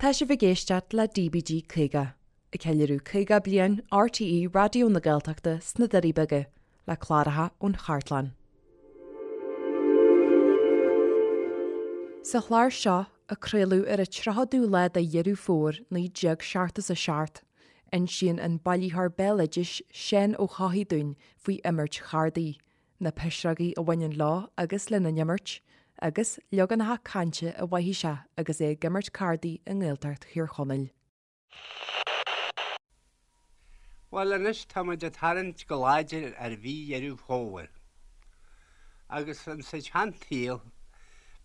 Tá sibh ag éisteacht le DBG 50, ag ceiliúradh 50 bliain RTÉ Raidió na Gaeltachta sna Doirí Beaga, le cláracha ón chartlann. Sa chlár seo, a craoladh ar an 30ú lá de Dheireadh Fómhair 1977, insíonn an bailitheoir béaloidis Seán Ó hEochaidh dúinn faoi imirt chárdaí, na pisreogaí a bhaineann leo agus lena n-imirt, agus leaganacha cainte a mhothaigh sé agus é ag imirt cárdaí i nGaeltacht Thír Chonaill. Bhuel anois tá muid ag tarraingt go láidir ar mhí Dheireadh Fómhair. Agus insa tseansaol,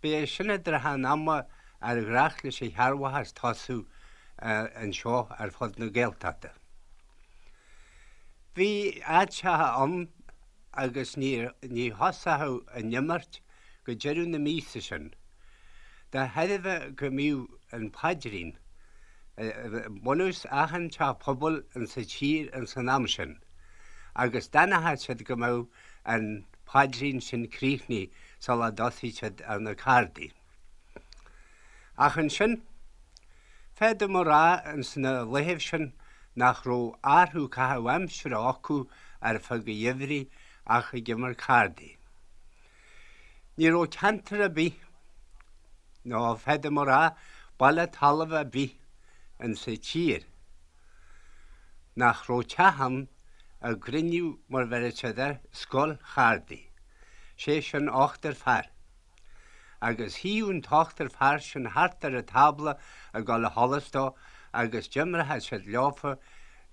b'é sin an trátha an ama ar ghnách leis an chearrbhachas tosú anseo ar fud na Gaeltachta. Bhí áiteacha ann agus ní thosódh an imirt go deireadh na míosa sin, de thairbhe go mbíodh an paidrín i mbunús achan teach pobail insa tír ins an am sin, agus d'fhanfadh siad go mbeadh an paidrín sin críochnaithe sula dtosaíodh siad ar na cárdaí. Ach ansin, féadaim a rá ins na laethibh sin nach raibh athrú caitheamh aimsire acu ar feadh an gheimhridh ach ag imirt cárdaí. Ní raibh ceantar ar bith, nó féadaim a rá baile talaimh ar bith insa tír, nach raibh teach ann a gcruinníodh, mar bheireadh siad air, scoil chárdaí, sé sin ochtar fear. Agus shuíodh an t-ochtar fear sin thart ar an tábla ag dul a sholas dó agus d'imreochadh siad leofa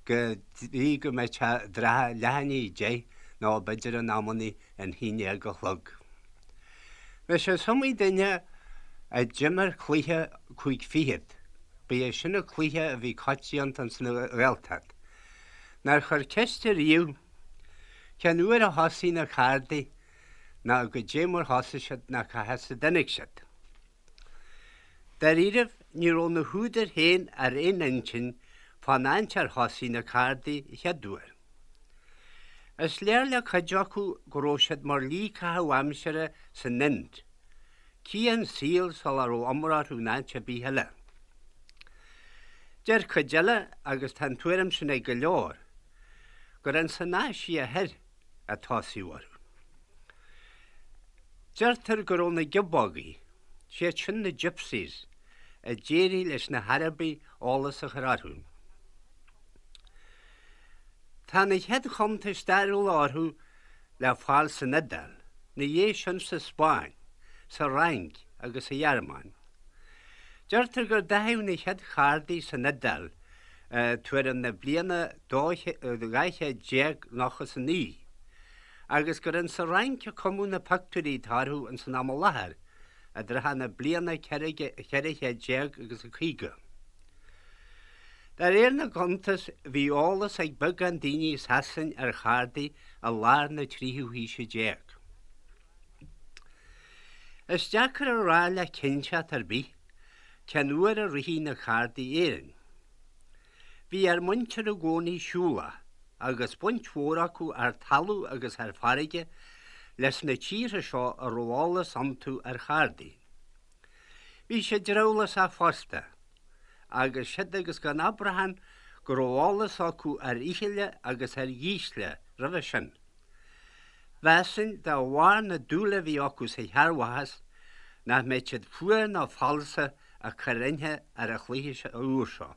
go dtí go mbeadh sé i dtrátha leath i ndiaidh a deich nó b'fhéidir in amannaí an haon déag a chlog. Anois is iomaí duine a d'imir cluiche cúig fichead, ba é sin an cluiche a bhí coitianta ins an Ghaeltacht, nár chuir ceist ariamh cén uair a thosaigh na cárdaí ná goidé mar thosaigh siad ná cá has a dtáinig siad. Dáiríribh, ní raibh na húdair féin ar aon intinn fán áit ar thosaigh na cárdaí an chéad uair. Is léir le cuid acu go raibh siad mar shlí caitheamh aimsire san Ind, cian saoil sula raibh iomrá orthu in áit ar bith eile. Deir cuid eile, agus tá an tuairim sin ag go leor, gur ins an Áise Thoir a tosaíodh orthu. Deirtear go raibh na giobógaí, siad sin na gypsies, a d'éirigh leis na hArabaigh eolas a chur orthu. Tá na chéad chuntais stairiúla orthu le fáil san Iodáil, 'na dhiaidh sin sa Spáinn, sa Fhrainc agus sa Ghearmáin. Deirtear gur dathaíodh na chéad chárdaí san Iodáil tuairim na bliana 1299, agus gur insa Fhrainc a cumadh na pictiúirí atá orthu ins an am i láthair, i dtrátha na bliana 1400 agus a 50. De réir na gcuntas, bhí eolas ag beagán daoine i Sasain ar chárdaí i lár na tríú haoise déag. Is deacair a rá le cinnteacht ar bith cén uair a ritheadh na cárdaí Éirinn. Bhí ár muintir i gcónaí siúlach agus baint mhór acu ar talamh agus ar farraige leis na tíortha seo a raibh eolas iontu ar chárdaí. Bhí siad drabhlásach fosta, agus siad agus gan abrachán go raibh eolas acu ar fhichille agus ar dhísle roimhe sin. Mheasfainn, de bharr na dúile a bhí acu sa chearrbhachas, nach mbeadh siad fuar ná falsa ag cur inche ar an chluiche úr seo.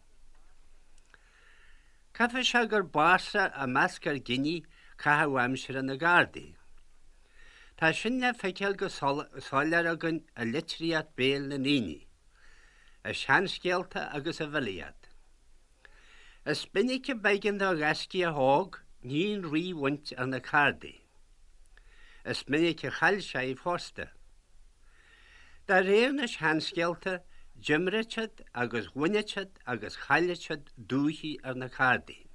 Caithfidh sé gur b'ársa i measc ár gcine caitheamh aimsire na gcárdaí. Tá sin le feiceáil go soiléir againn i litríocht béil na ndaoine, i seanscéalta agus i bhfilíocht. Is minic a b'éigean do ghaiscíoch óg ní an rí a bhaint ar na cárdaí. Is minic a chaill sé í fosta. De réir na seanscéalta, d'imreodh siad agus bhaineadh siad agus chailleadh siad dúichí ar na cárdaí.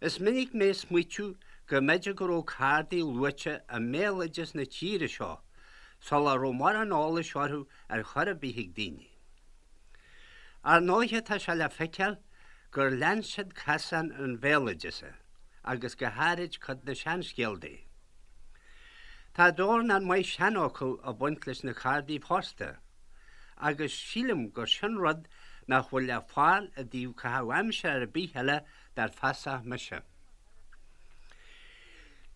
Is minic mé ag smaoitiú go mb'fhéidir go raibh cárdaí luaite i mbéaloideas na tíre seo sula raibh mórán eolais orthu ar chor ar bith ag daoine. Ar ndóighe tá sé le feiceáil gur lean siad casán an bhéaloideasa agus go háirid cuid na seanscéaltaí. Tá dornán maith seanfhocal ag baint leis na cárdaí fosta agus sílim gur sin rud nach bhfuil le fáil i dtaobh caitheamh aimsire ar bith eile dar feasach mise.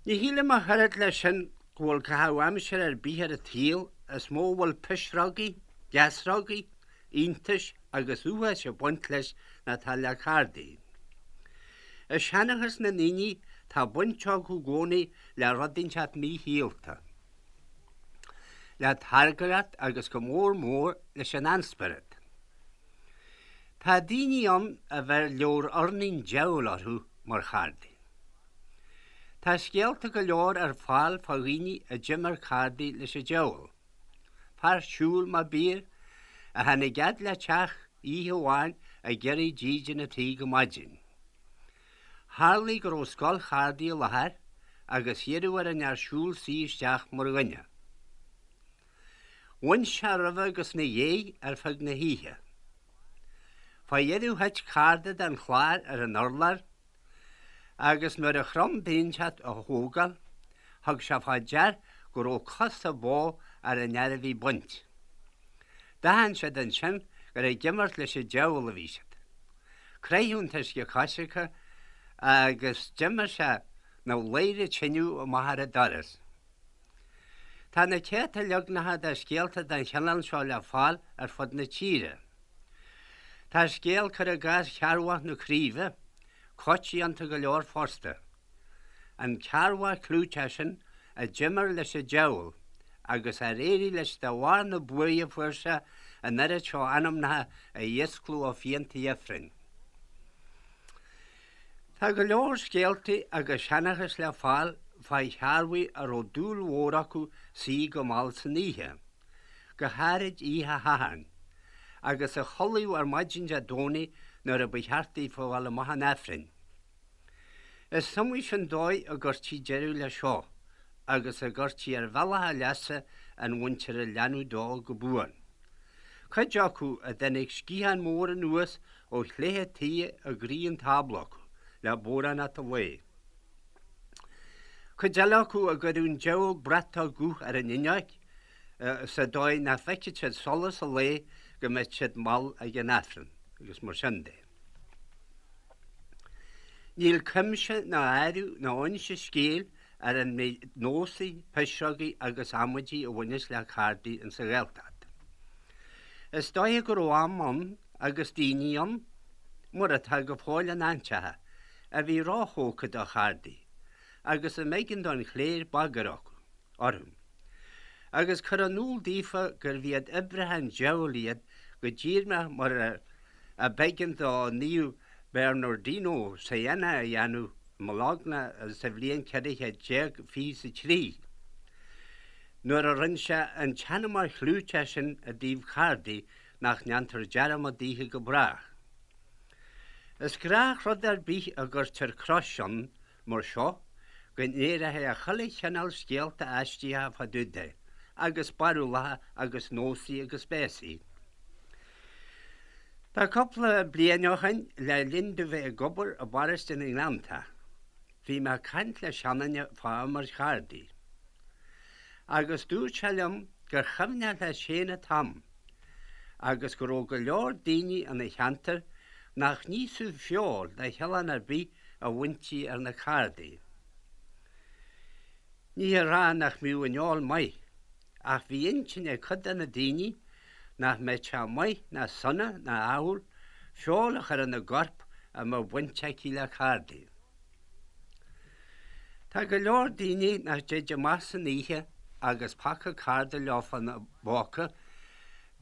Ní shílim ach oiread leis sin go bhfuil caitheamh aimsire ar bith ar an tsaol is mó a bhfuil pisreogaí, geasrógaí, iontais agus uafáis ag baint leis ná atá le cárdaí. I seanchas na ndaoine tá baint acu i gcónaí le rud inteacht míshaolta, le targaireacht agus go mór mór leis an ainspiorad. Tá daoine ann a bheir leabhar urnaí an diabhail orthu mar chárdaí. Tá scéalta go leor ar fáil fá dhaoine a d'imir cárdaí leis an diabhal. Fear siúil mar b'fhíor, a tháinig fhad le teach oíche amháin ag iarraidh dídean a tí go maidin. Tharlaigh go raibh scoil chárdaí i láthair agus iarradh ar an fhear siúil suí isteach mar dhuine. Bhain sé roimhe agus 'na dhéidh ar feadh na hoíche. Fá dheireadh thit cárda den chlár ar an urlár agus nuair a chrom duine inteacht a thógáil, thug sé fá dear go raibh cosa bó ar an fhear a bhí ag baint. D'aithin siad ansin gur ag imirt leis an diabhal a bhí siad. Croitheadh an t-uisce coisricthe agus d'imigh sé 'na bhladhaire tineadh amach ar an doras. Tá na céadta leagnacha de scéalta den chineál seo le fáil ar fud na tíre. Tá scéal, cuir i gcás Chearrbhach na Craoibhe, coitianta go leor fosta. An Cearrbhach clúiteach sin a d'imir leis an diabhal agus ar éirigh leis de bharr na buaidhe a fuair sé an oiread seo anamnacha a dhíoscladh ó phianta ifrinn. Tá go leor scéaltaí agus seanchas le fáil fá chearrbhaigh a raibh dúil mhór acu suí go mall san oíche, go háirid oíche Shathairn, agus a chodlaíodh ar maidin Dé Domhnaigh nuair a ba cheart daofa a dhul amach chun Aifrinn. Is iomaí sin dóigh a gcuirtí deireadh leis seo agus a gcuirtí ar bhealach a leasa an mhuintir a leanadh dó go buan. Cuid acu a dtáinig sciathán mór anuas ó chléithe tuí i gcroí an tábla acu le bodhránacht an lae. Cuid eile acu a gcuireadh an deabhóg bratach guth ar an fhuinneoig sa dóigh nach bhfeicfeadh siad solas an lae go mbeadh siad mall ag an Aifreann agus mar sin de. Níl cuimse ná áireamh ná inse scéil ar an méid nósaí, pisreogaí agus amaidí a bhaineas le cárdaí insa Ghaeltacht. Is dóiche go raibh am ann agus daoine ann, mar atá go fóill in áiteacha, a bhí róthógtha do chárdaí agus a mb'éigean don chléir bagairt orthu agus cur in iúl daofa gurbh iad oibrithe an diabhail iad go díreach mar a b'éigean do Naomh Bernardino Siena a dhéanamh i mBologna sa bhliain 1423 nuair a rinne sé an tseanmóir chlúiteach sin i dtaobh cárdaí nach ndéantar dearmad daofa go brách. Is gnáthrud ar bith a gcuirtear crois ann mar seo go n-éireoidh chuile chineál scéalta aisteacha fá dtaobh de, agus barúlacha agus nósaí agus béasaí. Tá cúpla bliain ó shoin, le linn domh bheith ag obair i bparóiste na nGleanntach, bhí mé ag caint le seanduine fá imirt chárdaí. Agus dúirt sé liom gur chuimhneach leis féin an t-am agus go raibh go leor daoine ina cheantar nach n-íosfadh feoil de chineál ar bith a bhaintí ar na cárdaí. Ní hé a rá nach mbíodh an fheoil maith, ach bhí intinn ag cuid de na daoine nach mbeadh sé maith ná sona ná ádhúil feoil a chur ina gcorp a mbeadh baint aici le cárdaí. Tá go leor daoine nach dtéid amach san oíche agus paca cárda leofa ina bpóca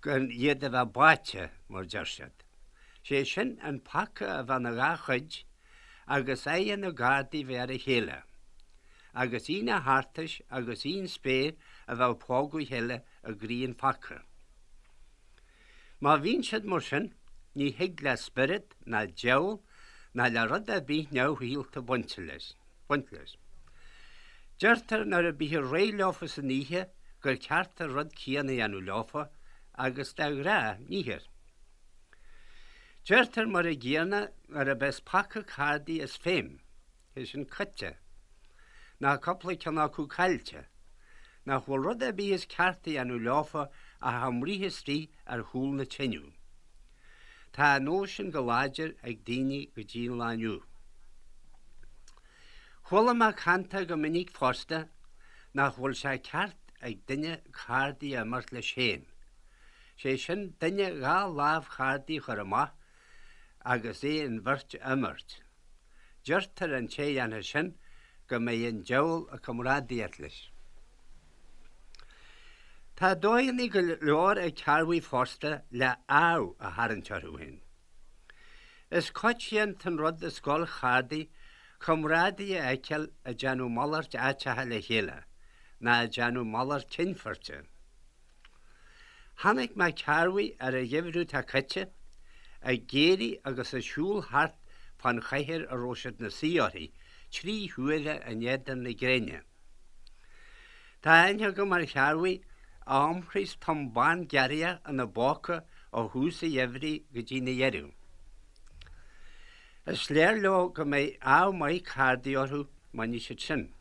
gan iad a bheith báite, mar deir siad. Sé sin an paca a bheith 'na dhá chuid agus aghaidhe na gcárdaí bheith ar a chéile, agus aon a thartais agus aon spéir a bheith ag pógadh a chéile i gcroí an phaca. Má bhíonn siad mar sin, ní thig le spiorad ná diabhal ná le rud ar bith neamhshaolta baint leis. Baint leis. Deirtear nuair a bíthear réidh leofa san oíche gur ceart an rud céanna a dhéanamh leofa agus de ghnáth níthear. Deirtear mar a gcéanna nuair a bheas paca cárdaí as feidhm, sé sin caite, ná cúpla ceann acu caillte, nach bhfuil rud ar bith is ceart a dhéanamh leofa ach a mbruith istigh ar chúl na teineadh. Tá an nós sin go láidir ag daoine go dtí an lá inniu. Chuala mé cantach go minic fosta nach bhfuil sé ceart ag duine cárdaí a imirt leis féin, sé sin duine dha lámh chárdaí a chur amach agus é an bheirt a imirt. Deirtear an té a dhéanfas sin go mbeidh an diabhal ag comrádaíocht leis. Tá dóigheanna go leor ag cearrbhaigh fosta le ádh a tharraingt orthu féin. Is coitianta an rud i scoil chárdaí comrádaithe a fheiceáil ag déanamh malairt áiteacha le chéile ná ag déanamh malairt cinnphoirte. Chonaic mé cearrbhaigh ar an gheimhreadh atá caite ag éirí agus ag siúl thart fán chathaoir a raibh siad 'na suí uirthi trí huaire in éadan na gréine. Tá aithne agam ar chearrbhaigh a iompraíos tom bán giorria ina bpóca ó thús an gheimhridh go dtí 'na dheireadh. Is léir leo go mbeidh ádh maith cárdaí orthu má ní siad sin.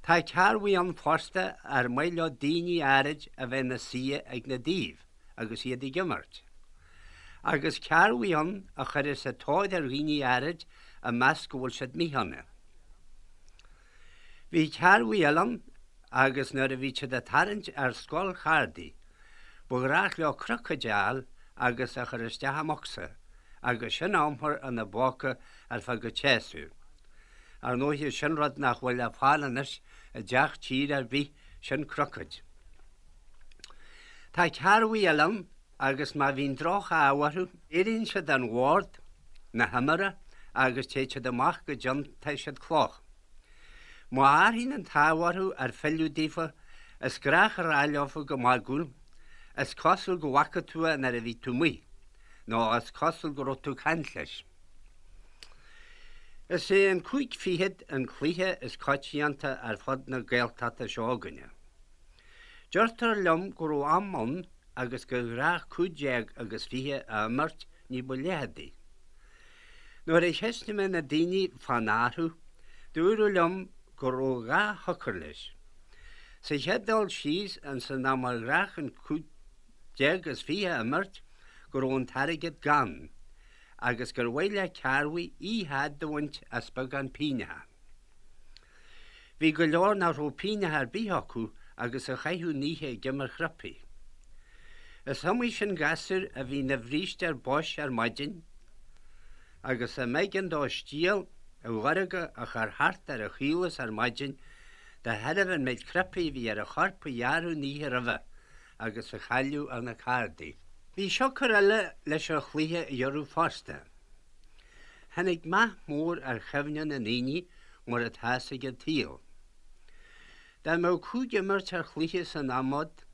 Tá cearrbhaigh ann fosta ar maith leo daoine áirid a bheith ina suí ag na dtaobh agus iad ag imirt. Agus cearrbhaigh ann a chuireas an tóir ar dhaoine áirid a meas go bhfuil siad míshona. Bhí cearrbhaigh eile ann agus nuair a bhí siad ag tarraingt ar scoil chárdaí ba ghnách leo crocaid a fháil agus a chur isteach i mbocsa agus sin a iompar ina bpóca ar feadh an tséasúir. Ar ndóighe sin rud nach bhfuil le fáil anois i dteach tíre ar bith, sin crocaid. Tá cearrbhaigh eile ann agus má bhíonn droch-ádh orthu, éiríonn siad den bhord na himeartha agus téid siad amach go dtiontaigh siad cloch. Má athraíonn an t-ádh orthu ar philleadh daofa, is gnách a rá leofa go magúil, Is cosúil go bhfaca tú é nuair a bhí tú amuigh, nó Is cosúil go raibh tú ag caint leis. Is é an cúig fichead an cluiche is coitianta ar fud na Gaeltachta seo againne. Deirtear liom go raibh am ann agus gur ghnách 15 agus 20 a imirt ní ba leitheadaí. Nuair a cheistigh mé na daoine fán athrú, dúradh liom go raibh dhá shiocair leis. Sa chéad dul síos, ins an am ar ghnách an 15 is 20 a imirt, go raibh an t-airgead gann, agus gur mhaith le cearrbhaigh oíche fhada a bhaint as beagán pingneacha. Bhí go leor nach raibh pingneacha ar bith acu agus a chaitheadh an oíche ag imirt chriúpaí. Is iomaí sin gasúr a bhí ina bhríste ar bois ar maidin agus a mb'éigean dó stiall mhaorga a chur thart ar a chaolas ar maidin de thairbhe an méid cnaipí a bhí ar a chorp a gearradh an oíche roimhe agus a chailleadh ar na cárdaí. Bhí siocair eile leis an chluiche a ghiorrú fosta. Tháinig meath mór ar chuimhne na ndaoine mar atá's ag an tsaol. Dá mbeadh cúig imirt ar chluiche san am úd,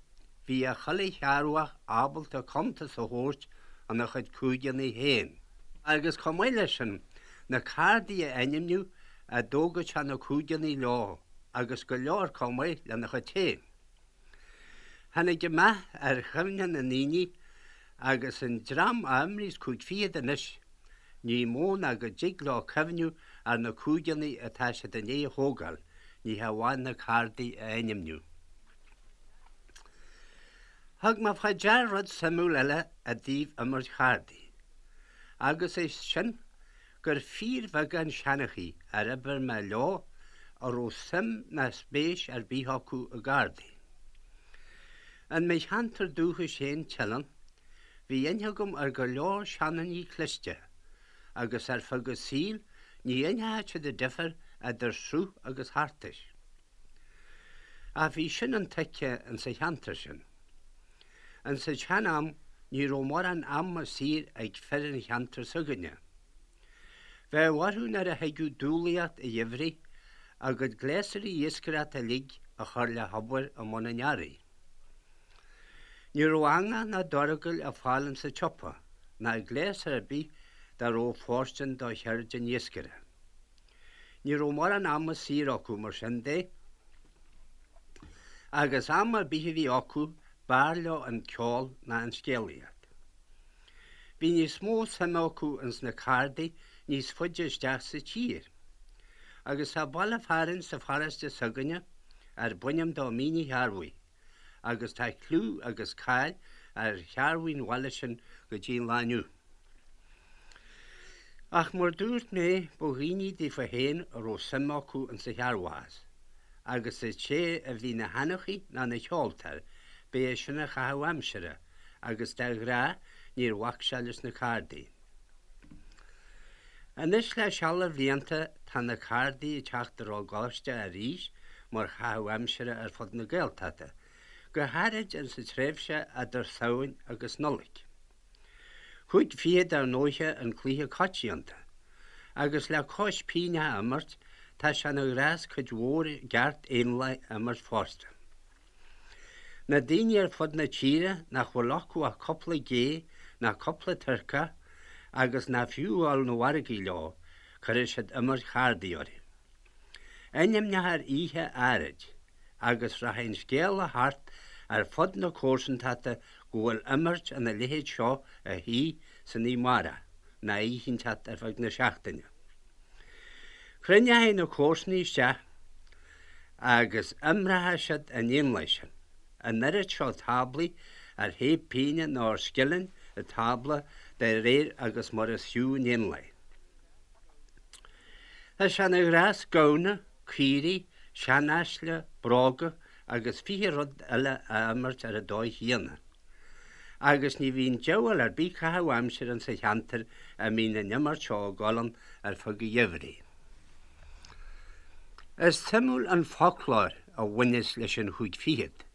bhí chuile chearrbhach ábalta cuntas a thabhairt ina chuid cúigeanna féin. Agus chomh maith leis sin, na cárdaí a ainmniú a dtógadh sé na cúigeanna leo agus go leor chomh maith lena chuid féin. Tháinig an meath ar chuimhne na ndaoine agus an dream a imríos cúig fichead anois, ní mó ná go dtig leo cuimhniú ar na cúigeanna atá siad i ndiaidh a thógáil, ní hamháin na cárdaí a ainmniú. Thug mé fá dear rud suimiúil eile i dtaobh imirt chárdaí, agus é sin gur fíorbheagán seanchaí ar oibir mé leo a raibh suim ná spéis ar bith acu i gcárdaí. In mo cheantar dúchais féin, Teileann, bhí aithne agam ar go leor seandaoine cliste agus ar feadh a saoil ní aithneodh siad an difear idir sruth agus thartais. Ach bhí sin intuigthe insa cheantar sin. Insa tsean-am ní raibh mórán ama saor ag fir an cheantair s'againne. Bheadh orthu nuair a thigeadh dúlaíocht an gheimhridh a gcuid gléasraí iascaireachta uilig a chur le hobair i mbun an earraigh. Ní raibh eangach ná dorgail ar fáil insa tsiopa ná gléas ar bith dá raibh fóirstean do cheird an iascaire. Ní raibh mórán ama saor acu mar sin de agus am ar bith a bhí acu b'fhearr leo an ceol ná an scéalaíocht. Bhí níos mó suime acu ins na cárdaí níos faide isteach sa tír. Agus tá baile fearainn sa pharóiste s'againne arb ainm dó Mín an Chearrbhaigh agus tá clú agus cáil ar chearrbhaigh an bhaile sin go dtí an lá inniu. Ach mar dúirt mé, ba dhaoine daofa féin a raibh suim acu insa chearrbhachas, agus an té a bhí 'na sheanchaí ná 'na cheoltóir, b'é sin a chaitheamh aimsire, agus de ghnáth níor bhac sé leis na cárdaí. Anois le seal de bhlianta tá na cárdaí ag teacht i ró-ghaiste arís mar chaitheamh aimsire ar fud na Gaeltachta, go háirid insa tréimhse eadar Samhain agus Nollaig. Chúig fichead ar ndóiche an cluiche coitianta, agus le cois pingneacha a imirt, tá sé ina ghnás cuid mhór i gceart éanlaith a imirt fosta. Na daoine ar fud na tíre nach bhfuil acu ach cúpla gé ná cúpla turcach agus nach fiú a dhul 'na mhargaidh leo, cuirfidh siad imirt chárdaí orthu. Ainmneochar oíche áirid agus rachaidh an scéala thart ar fud na comharsantachta go bhfuil imirt ina leithéid seo ar siúl san oíche amárach ná oíche inteacht ar feadh na seachtaine. Cruinneoidh na comharsanaigh isteach agus imreochaidh siad an éanlaith sin, an oiread seo táblaí ar thaobh pingine nó ar scilling an tábla de réir agus mar is fiú an éanlaith. Tá sé ina ghnás gamhna, caoirigh, seanaisle, bróga agus 20 rud eile a imirt ar an dóigh chéanna. Agus ní bhíonn diabhal ar bith caitheamh aimsire insa cheantar a mbíonn an imirt seo ag dul ann ar feadh an gheimhridh. Is suimiúil an foclóir a bhaineas leis an chúig fichead.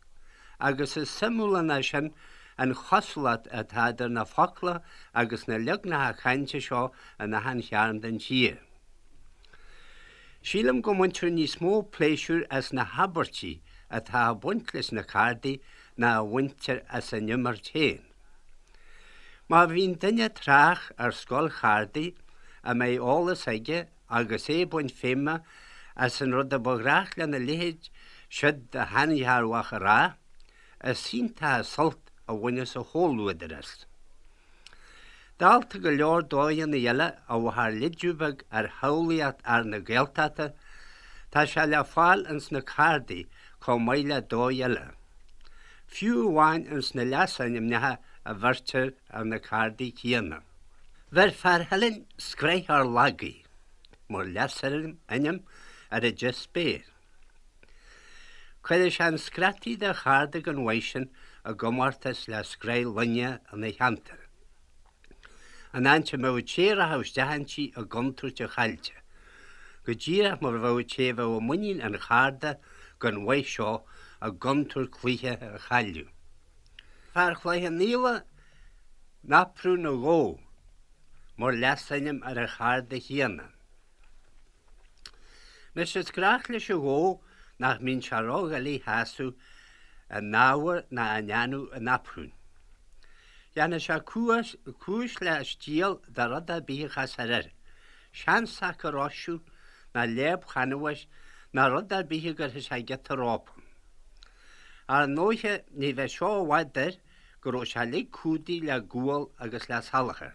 Agus is suimiúla ná sin an chosúlacht atá idir na focla agus na leagnacha cainte seo in achan chearn den tír. Sílim go mbaintear níos mó pléisiúir as na habairtí atá ag baint leis na cárdaí ná a bhaintear as an imirt féin. Má bhíonn duine tráth ar scoil chárdaí a mbeidh eolas aige agus é ag baint feidhme as an rud a ba ghnách lena leithéid siúd de sheanchearrbhach a rá, is iontach an sult a bhaineas a chomhluadar as. Dálta go leor dóigheanna eile a bheadh léideadh beag ar shamhlaíocht fhear na Gaeltachta, tá sé le fáil ins na cárdaí chomh maith le dóigh eile. Fiú amháin ins na leasainmneacha a bheirtear ar na cárdaí céanna. Bheir fear Theilinn Scraith Ár Lagaí mar leasainm ar an deich spéir. Cuireadh sé an scrataí de chárda den mhaith sin i gcomórtas le scraith loinge ina cheantar. An áit a mbeadh an té a rachadh isteach inti i gcontúirt a chaillte, go díreach mar a bheadh an té a bheadh i muinín an charda den mhaith seo i gcontúirt cluiche a chailleadh. Fear Chloich Cheann Fhaola Naprún an Ghó mar leasainm ar an charda chéanna. Anois is gnách leis an ghó nach mbíonn sé ródhoiligh a shásamh in ábhar ná i ndéanamh an naprúin. Dhéanfadh sé cúis le stiall de rud ar bith a chasfar air, seansac a roiseadh ná léab chanbháis ná rud ar bith a gcuirfeadh sé giota rópa. Ar ndóiche ní bheadh seo i bhfad air go raibh sé uilig cumhdaithe le gual agus le salachar.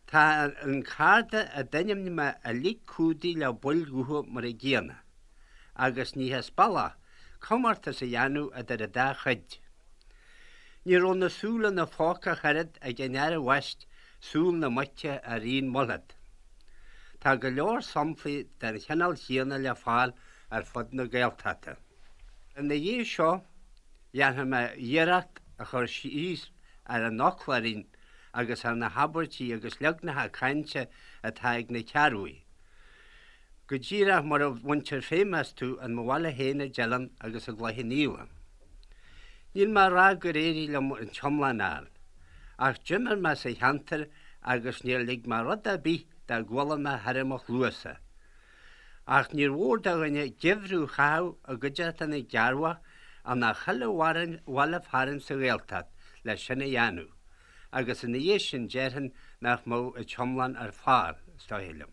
Tá an carda a d'ainmnigh mé uilig cumhdaithe le baill dhubha mar an gcéanna, agus ní as bealach comórtas a dhéanamh idir an dá chuid. Ní raibh na súile ina phóca ach oiread ag an fhear a bhaist Súil na Muice ar Ian Mulhead. Tá go leor samplaí den chineál chéanna le fáil ar fud na Gaeltachta. Ina dhiaidh seo, dhéanfaidh mé iarracht a chur síos ar an fhoclóirín agus ar na habairtí agus leagnacha cainte atá ag na cearrbhaigh, go díreach mar a bhaintear feidhm astu in mo bhaile féin i dTeileann agus i gCloich Cheann Fhaola. Níl mé a rá gur éirigh liom an t-iomlán a fháil, ach d'imir mé sa cheantar agus níor lig mé rud ar bith dá gcuala mé thar mo chluasa. Ach níor mhór do dhuine geimhreadh a chaitheamh i gcuideachta na gcearrbhach in chuile bhaile fearainn sa Ghaeltacht le sin a dhéanamh, agus ina dhiaidh sin déarfainn nach mbeadh an t-iomlán ar fáil, is dóigh liom.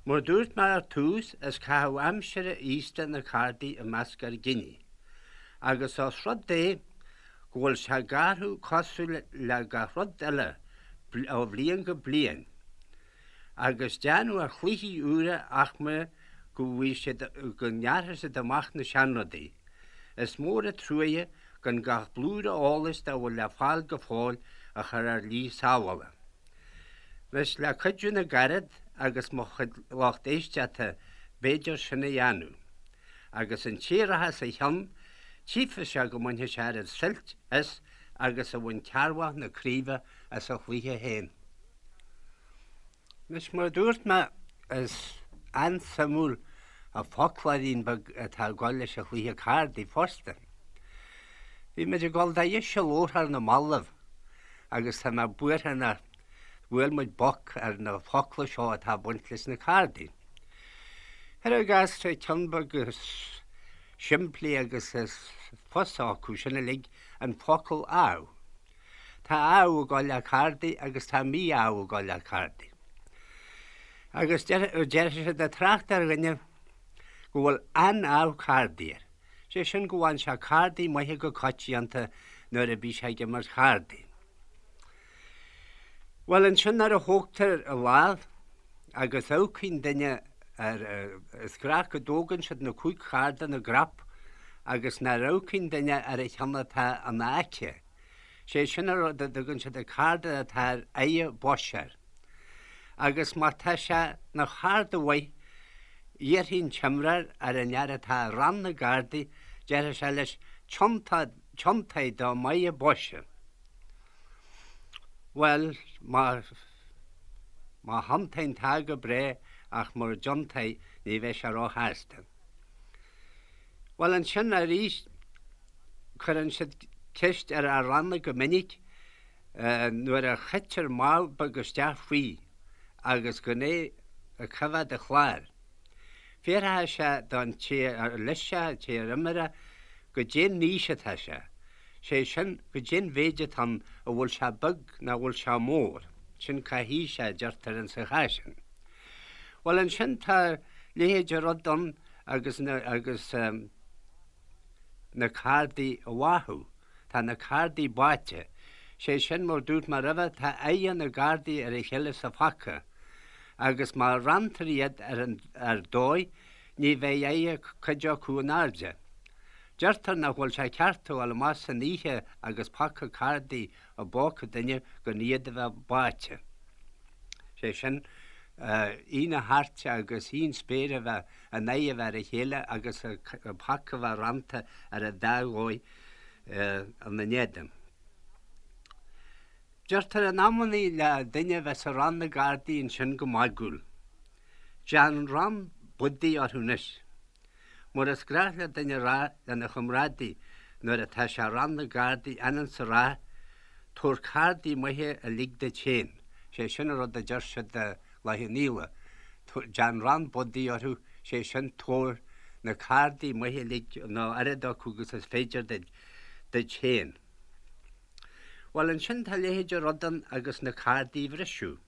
Mar dúirt mé ar tús, is caitheamh aimsire aosta na cárdaí i measc ár gcine. Agus os rud é go bhfuil sé ag athrú cosúil le gach rud eile ó bhliain go bliain, agus déanamh ar chluichí úra ach mar go bhfaighidh siad go ngearrfaidh siad amach na seanrudaí. Is mór an truaighe. Gan gach blúire eolais dá bhfuil le fáil go fóill a chur ar shlí sábhála. Anois, le cuidiú na gcarad agus mo chuid lucht éisteachta b'fhéidir sin a dhéanamh. Agus an té a rachas a chionn, tchífidh sé go mbainfidh sé oiread suilt as agus a bhain Cearrbhach na Craoibhe as a chluiche féin. Anois, mar a dúirt mé, is an-suimiúil an foclóirín beag atá ag dul leis an chluiche cárdaí fosta. Bhí muid ag dul dá dheis a labhairt ar na mallaibh agus tá mé buartha nár bhuail muid boc ar na focla seo atá ag baint leis na cárdaí. Cuir i gcás, tá ceann beag is simplí agus is fusa acu sin uilig, an focal ádh. Tá ádh ag dul le cárdaí agus tá mí-ádh ag dul le cárdaí. Agus deir siad ag trácht ar dhuine go bhfuil an-ádh cárdaí air. Sé sin go bhfaigheann sé cárdaí maithe go coitianta nuair a bhí sé ag imirt chárdaí. Bhuel ansin nuair a thógtar a lámh agus amharcann duine ar, is gnách go dtógann siad na 5 chárta ina gcrap agus nuair amharcann duine ar an cheann atá ina aice, sé sin an rud a dtugann siad an cárta atá ar aghaidh boise air. Agus má tá sé ina chárta mhaith, iarrfaidh an t-imreoir ar an fhear atá i rann na gcártaí, déarfaidh sé leis, Tiontaigh do mhagha boise. Bhuel, má, má thiontaíonn tá go breá ach mura dtiontaí ní bheidh sé róshásta. Bhuel, ansin arís cuireann siad ceist ar fhear ranna go minic nuair a chaitear mámh beag isteach faoi agus gan é ag coimheád an chláir. Fiafróidh sé don té ar leis sé, an té ar imir é, goidé an aois atá sé. Sé sin, goidé an mhéid atá ann, an bhfuil sé beag nó an bhfuil sé mór. Sin cá haois é, a deirtear insa chás sin. Bhuel, ansin tá leithéid de rud ann agus na, agus na cárdaí a bháthadh. Tá na cárdaí báite. Sé sin, mar dúirt mé roimhe, tá aghaidhe na gcárdaí ar a chéile sa phaca agus má ranntar iad ar an, ar dóigh, ní bheidh aghaidhe cuid acu in airde. Deirtear nach bhfuil sé ceart a ghabháil amach san oíche agus paca cárdaí i bpóca duine gan iad a bheith báite. Sé sin, aghaidh na hairt agus aghaidh an spéir a bheith, a n-aghaidh a bheith ar a chéile agus an paca a bheith rannta ar an dá dhóigh ina n-éadan. Deirtear in amannaí le duine a bheith sa rann na gcárdaí ansin go magúil, Déan rann budaí orthu anois. Mar is gnách le duine a rá lena chomrádaí nuair atá sé i rann na gcárdaí anonn 's a rá, Tabhair cárdaí maithe uilig duit féin. Sé sin an rud a deir siad i Loch an Íle, déan rann budaí orthu, sé sin tabhair na cárdaí maithe uilig nó oiread acu agus is féidir duit, duit féin. Bhuel ansin tá a leithéid de rud ann agus na cárdaí a bhriseadh.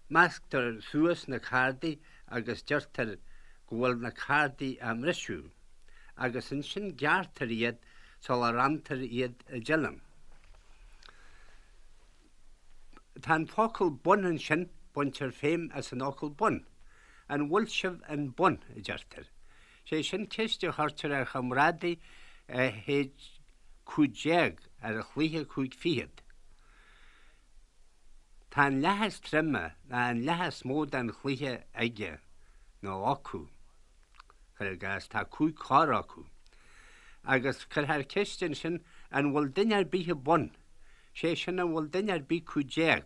Measctar suas na cárdaí agus deirtear go bhfuil na cárdaí á mbriseadh, agus ansin gearrtar iad sula ranntar iad i dtuilleam. Tá an focal bun ansin, baintear feidhm as an fhocal bun. An bhfuil sibh in bun? a deirtear. Sé sin ceist a chuirtear ar chomrádaí a shéid 15 ar chluiche chúig fichead. Tá an leath is troime ná an leath is mó den chluiche aige nó acu. Cuir i gcás, tá 5 chor acu. Agus cuirfear ceist ansin an bhfuil duine ar bith i bun? Sé sin an bhfuil duine ar bith 15?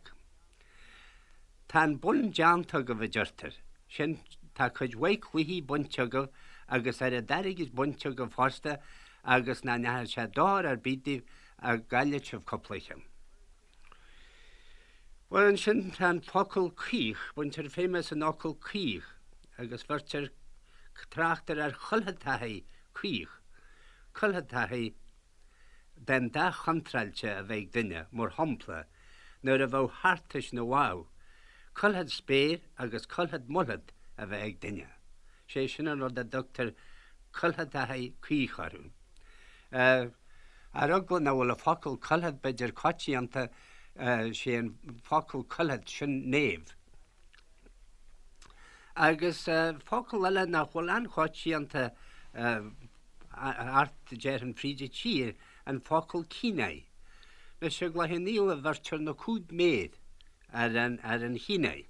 Tá an bun déanta agaibh, a deirtear. Sin, tá cuid mhaith cluichí bainte agaibh agus oiread airgid bainte agaibh fosta agus nach ndeachaigh sé dochar ar bith daoibh dá gcaillfeadh sibh cúpla ceann. Bhuel, ansin tá an focal caoch, baintear feidhm as an fhocal caoch agus bheirtear, tráchtar ar chuiltheantachaí caoch, cuiltheantachaí, den dath chontráilte a bheith ag duine, mar shampla, nuair a bheadh thartais na bhfadh, cuilthead spéir agus cuilthead muilthead a bheith ag duine. Sé sin an rud a dtugtar cuiltheantachaí caoch orthu. Ar eagla nach bhfuil an focal cuilthead b'fhéidir coitianta, sé an focal cuilthead, sin naomh. Agus focal eile nach bhfuil an-choitianta Thart, déarfainn, fríd an tír, an focal cíneáidh. Anois i gCloich Cheann Fhaola bheirtear na cúig méar ar an ar an chíneáidh.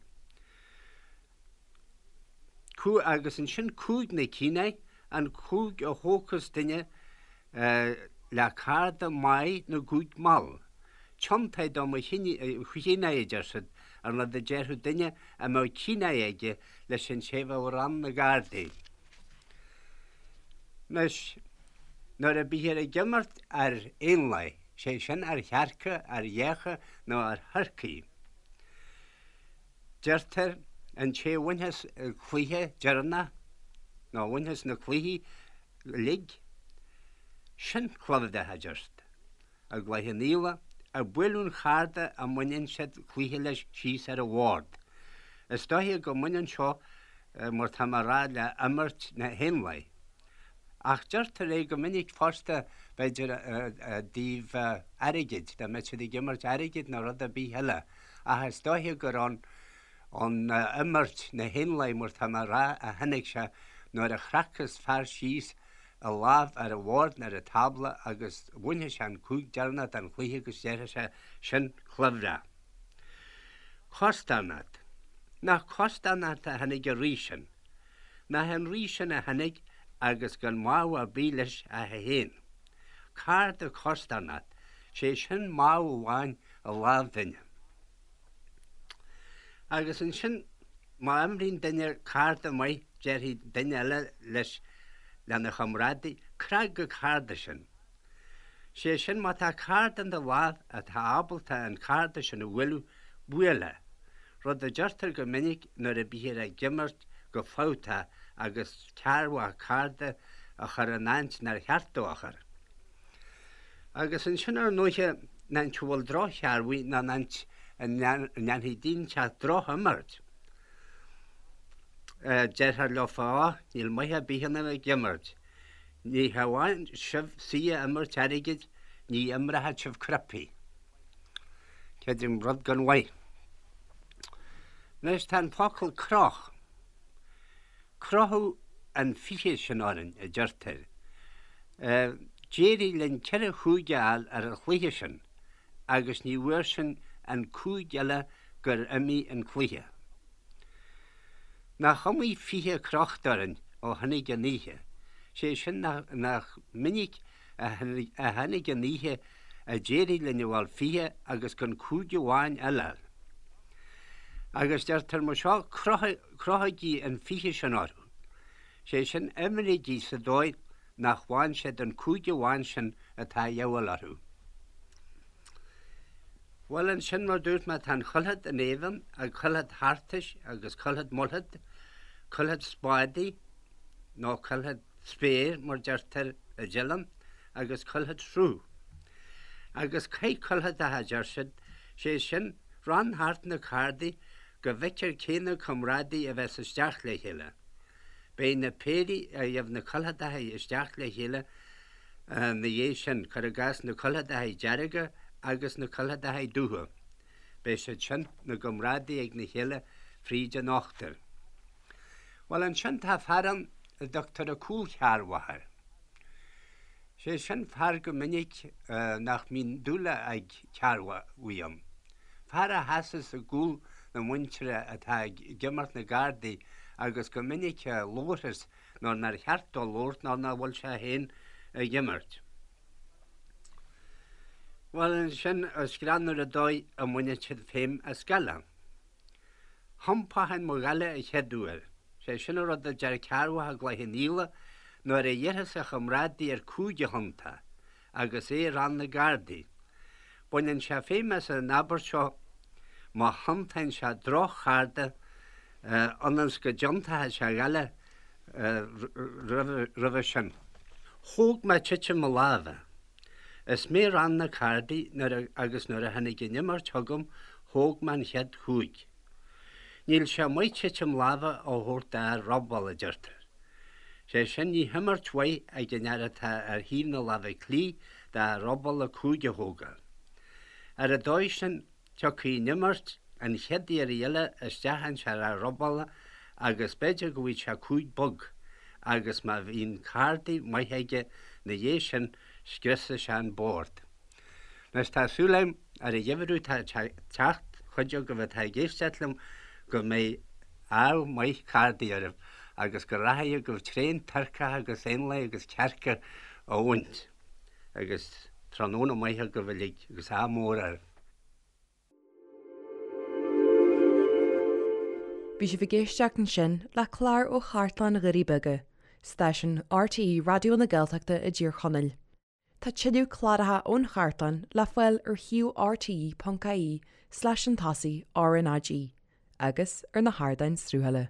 Agus ansin cúig na cíneáidh, an cúig a thógfas duine le cárda maith na gcúig mall. Tiontaigh do mo chíneáidh, a deir siad, an rud a déarfadh duine a mbeadh cíneáidh aige leis an té a bheadh ag rán na gcárdaí. Anois, nuair a bíthear ag imirt ar éanlaith, sé sin ar chearca, ar ghéacha nó ar thurcaí, Deirtear, an té a bhainfeas an cluiche deireanach, nó a bhainfeas na cluichí uilig, sin cluimhreach, a deir siad. I gCloich Cheann Fhaola, ag bualadh an charda a mbaineann siad cluiche leis síos ar an bhord. Is dóiche go mbaineann seo, mar tá mé a rá, le imirt na héanlaith. Ach deirtear é go minic fosta, b'fhéidir, i dtaobh airgid, dá mbeadh siad ag imirt airgid nó rud ar bith eile. Ach is dóiche gur ón imirt na héanlaith, mar tá mé a rá, a tháinig sé nuair a chracfas fear síos a lámh ar an bhord nó ar an tábla agus bhainfeadh sé an cúig deireanach den chluiche agus déarfadh sé, sin cluimhreach. Costarnocht. Nach costarnocht a tháinig an rí sin? Nach é an rí sin a tháinig agus gan mámh ar bith leis ach é féin? Cárta costarnocht, sé sin mámh amháin i lámh duine. Agus ansin má imríonn duine cárta maith déarfaidh duine eile leis, lena chomrádaí, 'Crag an cárta sin. Sé sin má tá cárta in do lámh atá ábalta an cárta sin a bhualadh, buail é. Rud a deirtear go minic nuair a bíthear ag imirt go fabhtach agus cearrbhach cárta a chur in áit nár cheart dó a chur. Agus ansin ar ndóiche in áit a bhfuil droch-chearrbhaigh nó in áit a ndéanfaidh duine inteacht droch-imirt, déarfar leofa, Á, níl maith ar bith ionaibh ag imirt. Ní hamháin sibh saoi a imirt airgid, ní imreochaidh sibh cnaipí. Creidim rud gan mhaith. Anois tá an focal croch. Crochadh an 20 sin orainn, a deirtear. D'éirigh linn ceithre chúig a fháil ar an chluiche sin agus ní bhfuair sinn an cúig eile gur imigh an cluiche. Nach iomaí 20 crochta orainn ó tháinig an oíche, sé sin nach minic a tháinig an oíche a d'éirigh linn a fháil 20 agus gan cúig amháin eile a fháil. Agus deirtear mar seo, crochaigí an 20 sin orthu, sé sin imrígí sa dóigh nach bhfaigheann siad an cúig amháin sin atá a dhíobháil orthu. Bhuel ansin mar dúirt mé tá an chuilthead in éadan, an cuilthead thartais agus cuilthead muilthead, cuilthead spádaí nó cuilthead spéir mar deirtear i dTeileann agus cuilthead sruth. Agus caith cuiltheadach a deir siad, sé sin rann thart na cárdaí go bhfeictear cé na comrádaí a bheas isteach le chéile. Beidh na péirí a gheibh na cuiltheadacha isteach le chéile na dhiaidh sin, cuir i gcás na cuiltheadacha dearga agus na cuiltheadacha dubha. Beidh siad sin 'na gcomrádaí ag na chéile fríd an ochtar. Bhuel ansin tá fear ann a dtugtar an cúlchearrbhach air. Sé sin fear go minic nach mbíonn dúil ag cearrbhaigh ann. Fear a sheasas i gcúl na muintire atá ag imirt na gcárdaí agus go minic a labharfas nuair nár cheart dó labhairt nó nach bhfuil sé féin ag imirt. Bhuel, ansin is greannmhar an dóigh a mbaineann siad feidhm as gaile. Thiompóchainn mo ghaile an chéad uair. Sé sin an rud a deir cearrbhach i gCloich Cheann Fhaola nuair a iarrfas a chomrádaí air cúig a thiontá agus é ag rán na gcárdaí. Baineann sé feidhm as an abairt seo má thiontaíonn sé droch-chárta ionas go dtiontóidh sé a ghaile roimhe sin. Thóg mé titim mo láimhe. Is mé ag rán na cárdaí nuair agus nuair a tháinig an imirt chugam thóg mé an chéad chúig. Níl sé maith titim láimhe a thabhairt d'fhear robála, a deirtear. Sé sin ní himirt mhaith ag an fhear atá ar thaobh na láimhe clí d'fhear robála cúig a thógáil. Ar an dóigh sin tiocfaidh an imirt an chéad iarraidh eile isteach ins an fhear robála agus b'fhéidir go bhfaighidh sé cúig bog. agus má bhíonn cárdaí maith aige 'na dhiaidh sin scriosadh sé an bord. Anois tá súil agam ar an gheimhreadh atá ag teacht, chuid agaibh atá ag éisteacht liom, go mbeidh ádh maith cárdaí oraibh agus go rachaidh agaibh tréan turcach agus éanlaith agus cearca a bhaint. Agus tráthnóna maith agaibh uilig agus ádh mór oraibh. Bhí sibh ag éisteacht ansin le clár ó Chartlann Dhoirí Beaga, stáisiún RTÉ Raidió na Gaeltachta i dTír Chonaill. Tá tuilleadh cláracha ón chartlann le fáil ar shuíomh rte.ie slash an tosaigh RnaG agus ar na hardáin sruthála.